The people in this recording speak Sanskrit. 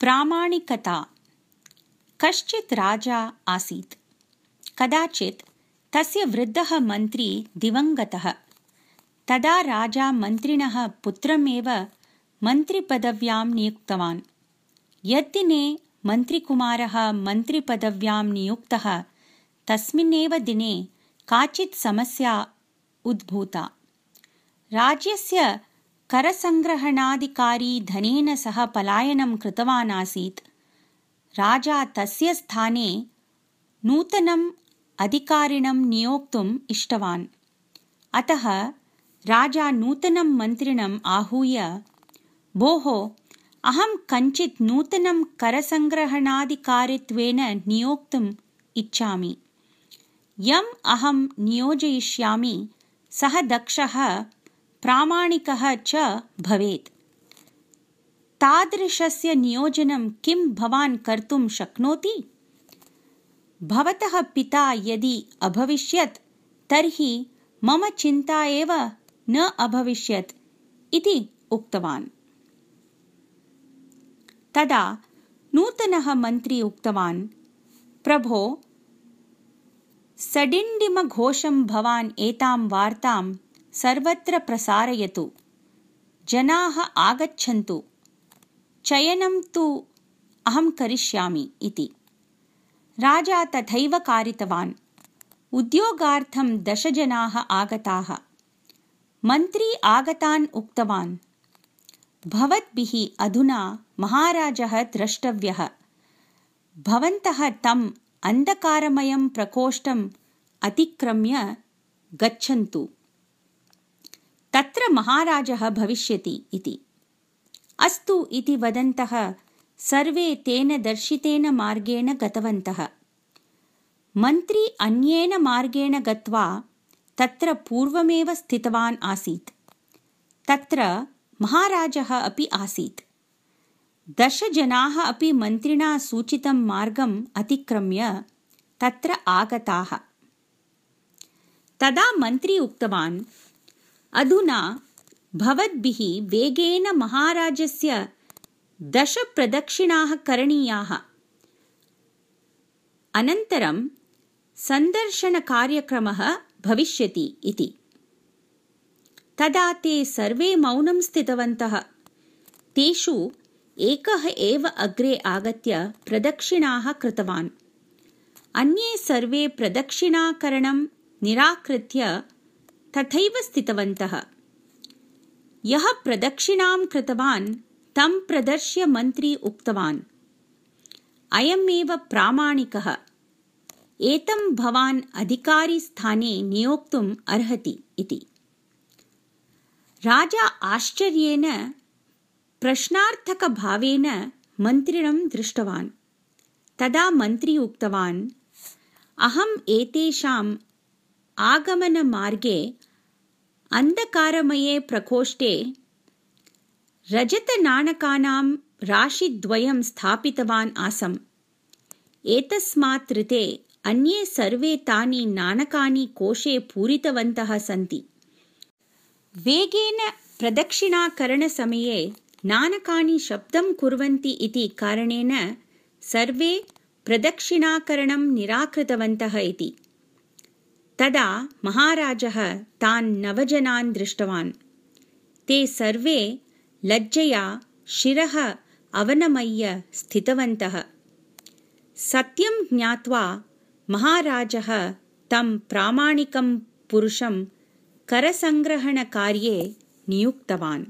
प्रामाणिकता। कश्चित् राजा आसीत्। कदाचित् तस्य वृद्धः मन्त्री दिवङ्गतः। तदा राजा मन्त्रिणः पुत्रमेव मन्त्रिपदव्यां नियुक्तवान्। यद्दिने मन्त्रिकुमारः मन्त्रिपदव्यां नियुक्तः तस्मिन्नेव दिने काचित् समस्या उद्भूता। राज्यस्य करसङ्ग्रहणाधिकारी धनेन सह पलायनं कृतवान् आसीत्। राजा तस्य स्थाने नूतनम् अधिकारिणं नियोक्तुम् इष्टवान्। अतः राजा नूतनं मन्त्रिणम् आहूय, भोः, अहं कञ्चित् नूतनं करसङ्ग्रहणाधिकारित्वेन नियोक्तुम् इच्छामि। यम् अहं नियोजयिष्यामि सः दक्षः, प्रामाणिकः च भवेत्। तादृशस्य नियोजनं किं भवान् कर्तुं शक्नोति? भवतः पिता यदि अभविष्यत् तर्हि मम चिन्ता एव न अभविष्यत् इति उक्तवान्। तदा नूतनः मन्त्री उक्तवान्, प्रभो, सडिण्डिमघोषं भवान् एतां वार्तां सर्वत्र प्रसारयतु। जनाः आगच्छन्तु। चयनं तु अहं करिष्यामि इति। राजा तथैव कारितवान्। उद्योगार्थं 10 जनाः आगताः। मन्त्री आगतान् उक्तवान्, भवद्भिः अधुना महाराजः द्रष्टव्यः। भवन्तः तम् अन्धकारमयं प्रकोष्ठम् अतिक्रम्य गच्छन्तु। तत्र महाराजः भविष्यति इति। अस्तु इति वदन्तः सर्वे तेन दर्शितेन मार्गेण गतवन्तः। मन्त्री अन्येन मार्गेण गत्वा तत्र पूर्वमेव स्थितवान् आसीत्। तत्र महाराजः अपि आसीत्। 10 जनाः अपि मन्त्रिणा सूचितं मार्गम् अतिक्रम्य तत्र आगताः। तदा मन्त्री उक्तवान्, अधुना भवद्भिः वेगेन महाराजस्य 10 प्रदक्षिणाः करणीयाः। अनन्तरं सन्दर्शनकार्यक्रमः भविष्यति इति। तदा ते सर्वे मौनं स्थितवन्तः। तेषु एकः एव अग्रे आगत्य प्रदक्षिणाः कृतवान्। अन्ये सर्वे प्रदक्षिणाकरणं निराकृत्य तथैव स्थितवन्तः। यः प्रदक्षिणां कृतवान् तं प्रदर्श्य मन्त्री उक्तवान्, अयमेव प्रामाणिकः। एतं भवान् अधिकारिस्थाने नियोक्तुम् अर्हति इति। राजा आश्चर्येन प्रश्नार्थकभावेन मन्त्रिणं दृष्टवान्। तदा मन्त्री उक्तवान्, अहम् एतेषाम् आगमनमार्गे अन्धकारमये प्रकोष्ठे रजतनाणकानां राशिद्वयं स्थापितवान् आसम्। एतस्मात् ऋते अन्ये सर्वे तानि नाणकानि कोशे पूरितवन्तः सन्ति। वेगेन प्रदक्षिणाकरणसमये नाणकानि शब्दं कुर्वन्ति इति कारणेन सर्वे प्रदक्षिणाकरणं निराकृतवन्तः इति। तदा महाराजः तान् 9 जनान् दृष्टवान्। ते सर्वे लज्जया शिरः अवनमय्य स्थितवन्तः। सत्यं ज्ञात्वा महाराजः तं प्रामाणिकं पुरुषं करसङ्ग्रहणकार्ये नियुक्तवान्।